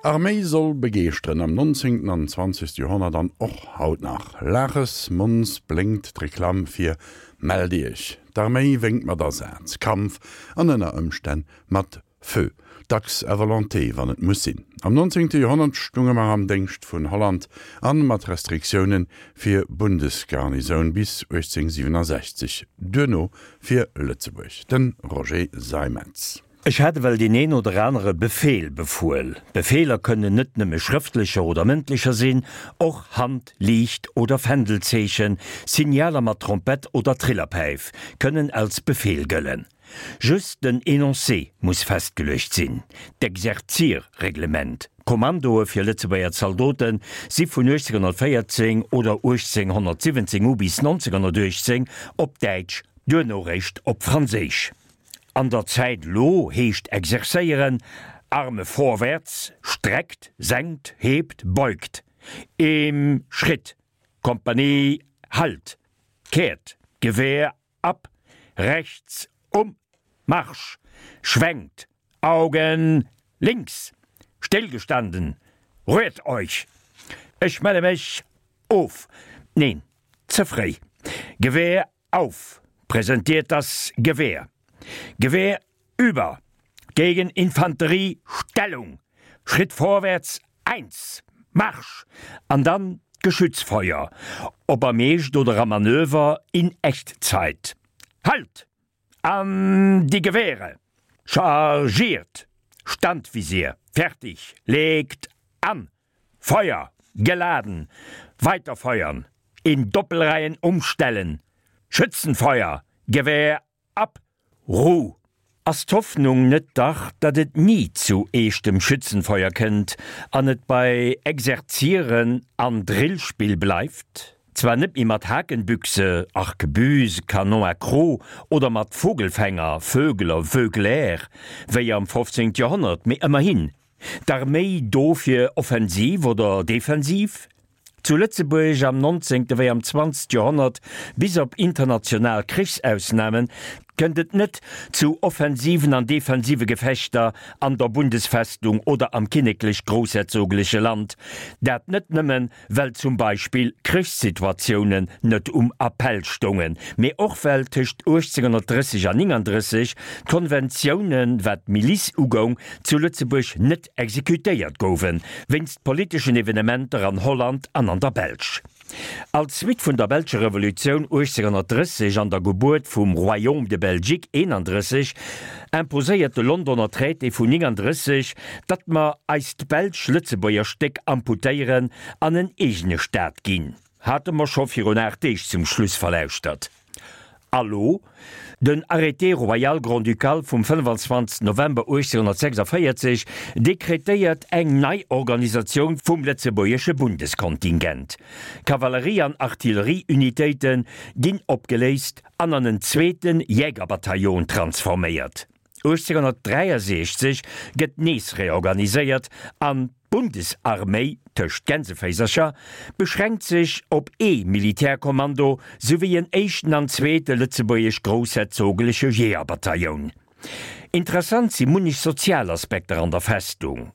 Arméi soll begeeschteren, am 19. an 20. Joerhonnert an och haut nach. Laaches Mons blénkt d'Reklamm fir Mellt Iech! D'Arméi wénkt mat Asaz, Kampf an ënner Ëmstänn mat Feu, dacks à volonté, wann et muss sinn. Am 19. Joerhonnert stunge mer am Déngscht vun Holland an mat Restriktiounen fir Bundesgarnisoun bis 1867, duerno fir Lëtzebuerg. De Roger Seimetz. Ech hat ewell deen een oder anere Befeel befuel. Befeeler kënnen net nëmme schrëftlecher oder mëndlecher sinn, och Hand-, Liicht oder Fändelzeechen, Signaler mat Trompett oder Trillerpäif kënnen als Befeel gëllen. Just den Enoncé muss festgeluecht sinn. D'Exerzierreglement, Kommandoe fir Lëtzebuerger Zaldote si vun 1814 oder 1817 u bis 1918 op Däitsch, duerno réischt op Franséisch. An der Zäit elo heescht exerzéieren, Arme vorwärts, streckt, senkt, hebt, beugt, im Schritt, Kompanie, halt, kehrt, Gewehr ab, rechts, um, Marsch, schwenkt, Augen links, stillgestanden, rührt euch, ech melle mech of, neen, ze fréi, Gewehr auf, präsentiert das Gewehr, Gewehr über, gegen Infanterie, Stellung, Schritt vorwärts, eins, Marsch! An dann d'Geschützfeuer, ob am Eescht oder am Manöver, in Echtzeit. Halt! An die Gewehre! Chargiert! Standvisier! Fertig! Legt an! Feuer! Geladen! Weiter feuern! In Doppelreihen umstellen! Schützenfeuer! Gewehr ab! Ruh! Ass d'Hoffnung net dach, datt et ni zu eechtem Schützenfeuer kënnt an et bei Exerzieren an Drillspill bleift? Zwar net méi mat Hakenbüchse, Arquebuse, Canon à croc oder mat Vogelfänger, Vögler, Vögler, wéi am 15. Joerhonnert, mee ëmmerhin, D'Arméi do fir Offensiv oder Defensiv? Zu Lëtzebuerg am 19. wéi am 20. Joerhonnert, bis op international Krichsausnamen, kënnt et net zu offensiven an defensive Gefechter an der Bundesfestung oder am kinneklech-groussherzogleche Land. Dat net nëmmen, well zum Beispill Krichssituatiounen net um Appell stoungen, mee och well tëscht 1830 an 39 d'Konventiounen, wat d'Milice ugoung, zu Lëtzebuerg net exekutéiert gouwen, wéinst politeschen Evenementer an Holland an an der Belsch. Als Suite vun der belscher Revolutioun 1830 an der Gebuert vum Royaume de Belgique 31 imposéiert de Londoner Traité vun 39, datt mer eist belsch-lëtzebuerger Stéck amputéieren an en eegene Staat ginn. Hate mer scho virun 8 Deeg zum Schluss verlauschtert. A lo? Den Arrêté royal grand-ducal vum 25 November 1846 dekretéiert eng nei Organisatioun vum lëtzebuergesche Bundeskontingent. Kavallerie an Artillerieunitéite ginn opgeléist an an en zweete Jägerbataillon transforméiert. 1863 gëtt nees reorganiséiert an d'Bundesarméi, tëscht Gänseféisercher, beschränkt sech op ee Militärkommando souwéi en éischten an zweete lëtzebuergesch-groussherzogleche Jeeërbatailloun. Interessant si munnech sozial Aspekter an der Festung.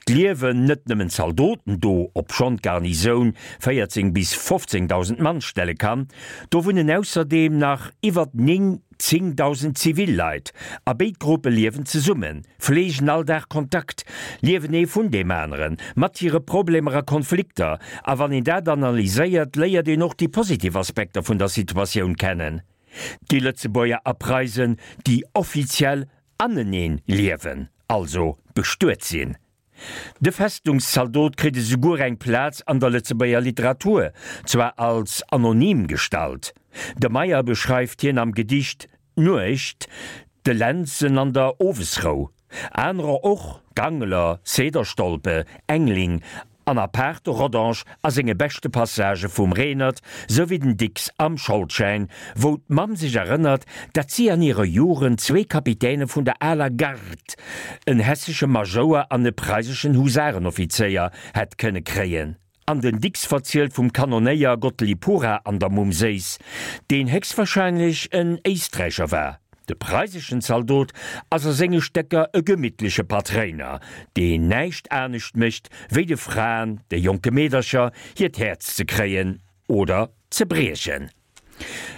D'liewen net nëmmen Zaldoten do, obschonn d'Garnisoun 14 bis 15.000 Mann stelle kann, do wunnen ausserdeem nach iwwert 9 10.000 Zivilleit, a béid Gruppe liewen zesummen, fleegen all Dag Kontakt, liewen ee vun deem aneren, mat hire Problemer a Konflikter. A wann een dat analyséiert, léiert een och déi positiv Aspekter vun der Situatioun kennen. Déi Lëtzebuerger a Preisen, déi offiziell aneneen liewen, also bestuet sinn. De Festungszaldot kritt esouguer eng Plaz an der Lëtzebuerger Literatur, zwar als anonym Gestalt. De Meyer beschreift hien am Gedicht D'Nuecht, de Lentzen an der Owesrou. Anerer och, Gangler, Cederstolpe, Engling an apaart de Rodange a senge beschte Passagë vum Renert, souwéi den Dicks am Scholdschäin, wou d'Mamm sech erënnert, datt si an hirer Jugend zwee Kapitäne vun der aler Garde, en hessesche Majouer an e preiseschen Husarenoffizéier, hätt kënne kréien. An den Dicks verzielt vum Kanonéier Gottlieb Pura an der Mumm Séiss, deen héchstwahrscheinlech en Éisträicher war. De preiseschen Zaldot ass a senge Stécker e gemittleche Patréiner, deen näischt anescht mécht, wéi de Fraen, de jonke Meedercher, hiert Häerz ze kréien oder ze briechen.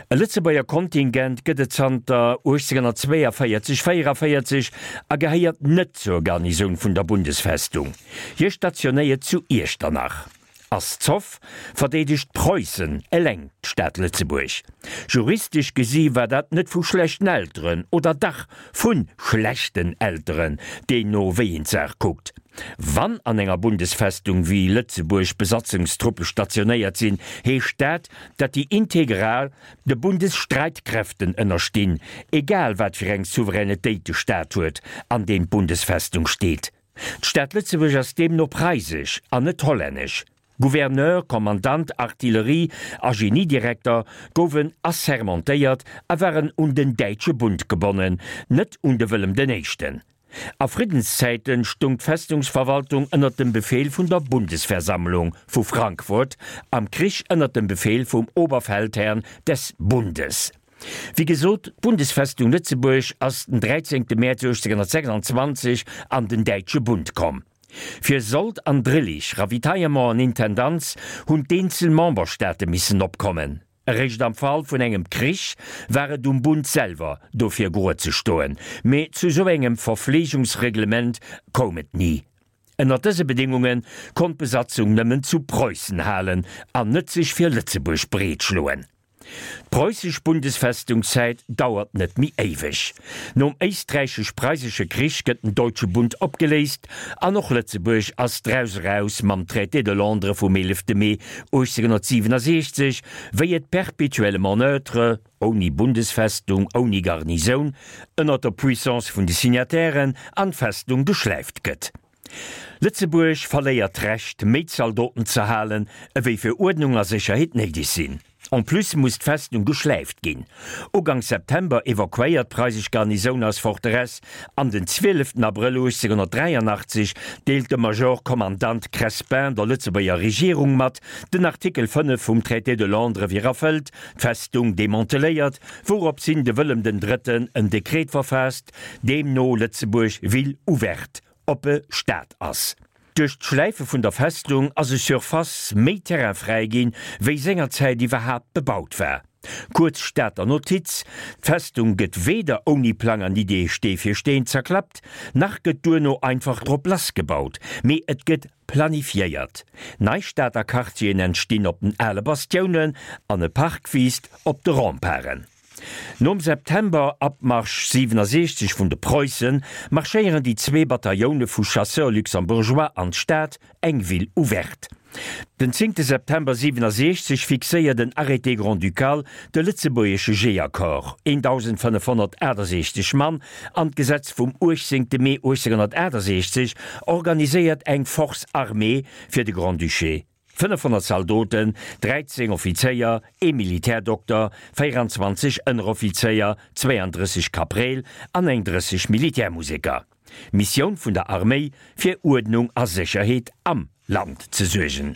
E Lëtzebuerger Kontingent gëtt et zanter 1842, 44 a gehéiert net zur Garnisoun vun der Bundesfestung. Hie stationéiert zu Iechternach. Ass Zoff, verdeedegt Preussen eleng d'Stad Lëtzebuerg. Juristesch gesi war dat net vu schlechten Elteren, oder dach vu schlechten Elteren, deemno wéi een d'Saach kuckt. Wann an enger Bundesfestung wéi Lëtzebuerg Besatzungstruppe stationéiert sinn, heescht dat, datt déi integral de Bundesstreitkräften ënnerstinn, egal wat fir eng Souveränetéit de Staat huet, an deem d'Bundesfestung steet. D'Stad Lëtzebuerg ass deemno preisesch an net hollännesch. Gouverneur, Kommandant, Artillerie a Geniedirekter gouwen assermentéiert a waren un den Däitsche Bund gebonnen, net un de Wëllem den Éischten. A Friddenszäiten stung d'Festungsverwaltung ënner dem Befehl vun der Bundesversammlung vu Frankfurt, am Krich ënner dem Befehl vum Oberfeldherrn des Bundes. Wéi gesot, d'Bundesfestung Lëtzebuerg ass den 13 Mäerz 1826 an den Däitsche Bund komm. Fir Sold an Drillich, Ravitaillement an Intendanz hunn d'eenzel Memberstaate missen opkommen. Eréischt am Fall vun engem Krich war et um Bund selwer, dofir grued ze stoen, mee zu sou engem Verfleegungsreglement koum et ni. Ënner dëse Bedéngunge konnt d'Besatzung nëmmen zu Preussen halen an net sech fir Lëtzebuerg breetschloen. D'Preußesch Bundesfestungszäit dauert net méi éiweg. Nom Éisträichesch-Preisesche Krich gëtt den Deutsche Bund opgeléist an och Lëtzebuerg ass draus eraus mam Traité de Londres vum 11 Mee 1867, wéi et perpétuellement neutre, ouni Bundesfestung, ouni Garnisoun, ënner der Puissance vun de Signatairen an d'Festung geschläift gëtt. Lëtzebuerg verléiert d'Recht, méi Zaldoten ze halen, ewéi fir Uerdnung a Sécherheet néideg sinn. En plus muss d'Festung geschläift ginn. Uganks September evakuéiert d'preisesch Garnisoun eis Forteresse an den 12 Abrëll 1883 deelt de Major Kommandant Crespin der Lëtzebuerger Regierung mat, den Artikel 5 vum Traité de Londres wier erfëllt, d'Festung demanteléiert, wourops hin de Wëllem den Drëtten en Dekret verfaasst, deemno Lëtzebuerg ville ouverte oppe Stad ass. Duerch d'Schläife vun der Festung ass e Surface méi Terrain fräi ginn, wéi sengerzäit iwwerhaapt bebaut war. Kuerz Stater Notiz, D'Festung gëtt weder ouni Plang an Idee Stee fir Steen zerklappt, nach gëtt duerno einfach drop lassgebaut, mee et gëtt planifiéiert. Nei Stater Quartieren entstinn op den ale Bastiounen an e Park wiisst op de Remparten. Nom September-Abmarsch 67 vun de Preussen marschéieren déi zwee Batailloune vu Chasseurs luxembourgeois an d'Stad, eng Ville ouverte. Den 10 September 67 fixéiert en Arrêté grand-ducal de lëtzebuergesche Jeeërcorps, 1.568 Mann, an d'Gesetz vum 18 Mee 1868 organiséiert eng Force armée fir de Grand-Duché. 500 Zaldoten, 13 Offizéier, ee Militärdokter, 24 Ënneroffizéier, 32 Kapreel an eng 30 Militärmuseker. Missioun vun der Arméi, fir Uerdnung a Sécherheet am Land ze suergen.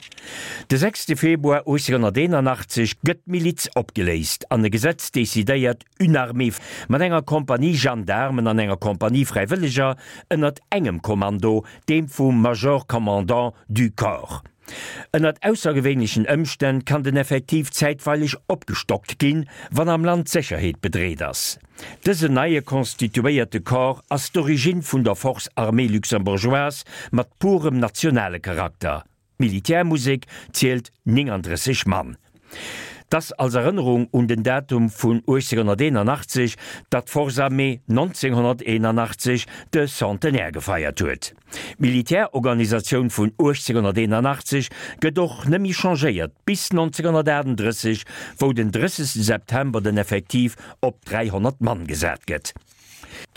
De 6 Februar 1881 gëtt d'Miliz opgeléist an e Gesetz decidéiert une armée mat enger Kompanie Gendaarmen an enger Kompanie Fräiwëlleger ënnert engem Kommando, deem vum Major Commandant du Corps. Ënnert aussergewéinlechen Ëmstänn kann den Effektiv zäitweileg opgestockt ginn, wann am Land d'Sécherheet bedreet ass. Dësen neie constituéierte Corps ass d'Origine vun der Force armée luxembourgeoise mat purem nationale Charakter. D'Militärmusek zielt 39 Mann. T'ass als Erënnerung un den Datum vun 1881, datt d'Force Armée 1981 de Centenaire gefeiert huet. D'Militärorganisatioun vun 1881 gëtt och nëmmi changéiert bis 1938, wou den 30 September den Effektiv op 300 Mann gesat gëtt.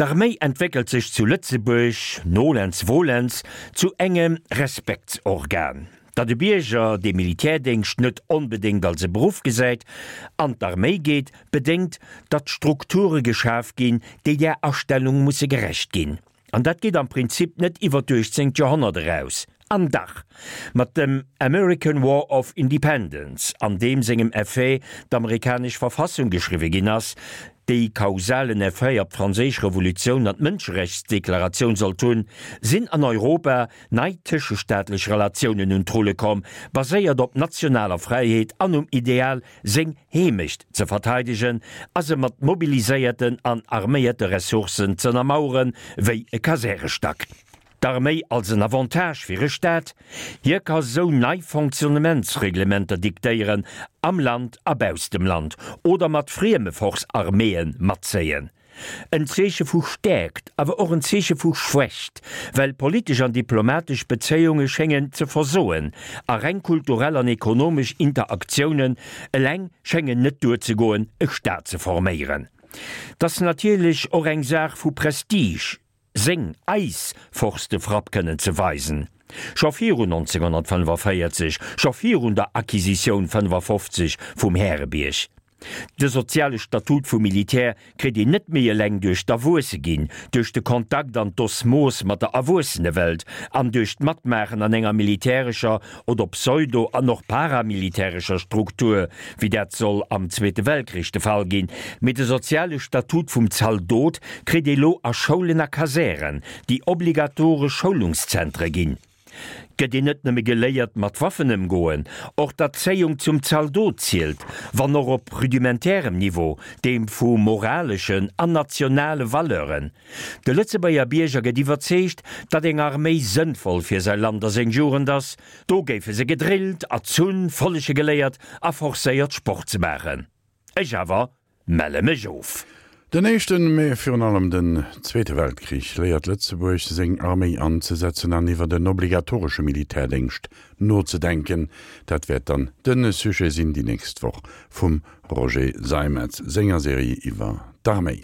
D'Arméi entwéckelt sech zu Lëtzebuerg, nolens volens, zu engem Respektsorgan. Datt e Bierger, dee Militärdéngscht net onbedéngt als e Beruff gesäit, an d'Arméi geet, bedéngt, datt Strukture geschaf ginn, déi där Astellung musse gerecht ginn. An dat geet am Prinzip net iwwer d'uechtzéngt Joerhonnert eraus. An dach, mat dem American War of Independence, an deem sengem Effet d'amerikanesch Verfassung geschriwwe ginn ass, déi kausalen Effet op d'Franséisch Revolutioun an d'Mënscherechtsdeklaratioun sollt hunn, sinn an Europa nei tëschestaatlech Relatiounen un d'Rulle komm, baséiert op nationaler Fräiheet an um Ideal, seng Heemecht ze verteidegen a se mat mobiliséierten an arméierte Ressourcen z'ënnermaueren, wéi e Kasärestack. D'Arméi als en Avantage fir e Staat, hie ka sou nei Fonctionnementsreglementer diktéieren, am Land a bausst dem Land, oder mat frieme Force-arméeën matzéien. En Zeeche vu Stäerkt, awer och en Zeeche vu Schwächt, well politesch an diplomatesch Bezéiunge schéngen ze versoen a reng kulturell an ekonomesch Interaktiounen eleng schéngen net duerzegoen, e Staat ze forméieren. 't ass natierlech och eng Saach vu Prestige. seng, eis Force de frappe kënnen ze weisen. Scho virun 1945, scho virun der Acquisitioun 55 vum Härebierg. De soziale Statut vum Militär kritt een net méi eleng duerch d'Erwuesseginn, duerch de Kontakt an d'Osmos mat der Erwuessenewelt an duerch d'Matmaachen an enger militärescher oder pseudo an och paramilitärescher Struktur, wéi dat soll am Zweete Weltkrich de Fall ginn, mee de soziale Statut vum Zaldot kritt ee lo a Schoulen a Kasären, déi obligatoresch Schoulungszentre ginn. Gëtt een net nëmme geléiert mat Waffen ëmgoen, och d'Erzéiung zum Zaldot zielt, wann och op rudimentärem Niveau, deem vu moraleschen an nationale Valeuren. De Lëtzebuerger Bierger gëtt iwwerzeegt, datt eng Arméi sënnvoll fir säi Land a seng Jugend ass. Do géife se gedrillt, erzunn, follege geléiert a forcéiert Sport ze maachen. Ech awer melle mech of. Den éischten, mee virun allem den zweete Weltkrich léiert Lëtzebuerg seng Arméi anzesetzen an iwwert en obligatoresche Militärdéngscht nozedenken. Dat wäert dann de Sujet sinn déi nächst Woch vum Roger Seimetz senger Serie iwwer d'Arméi.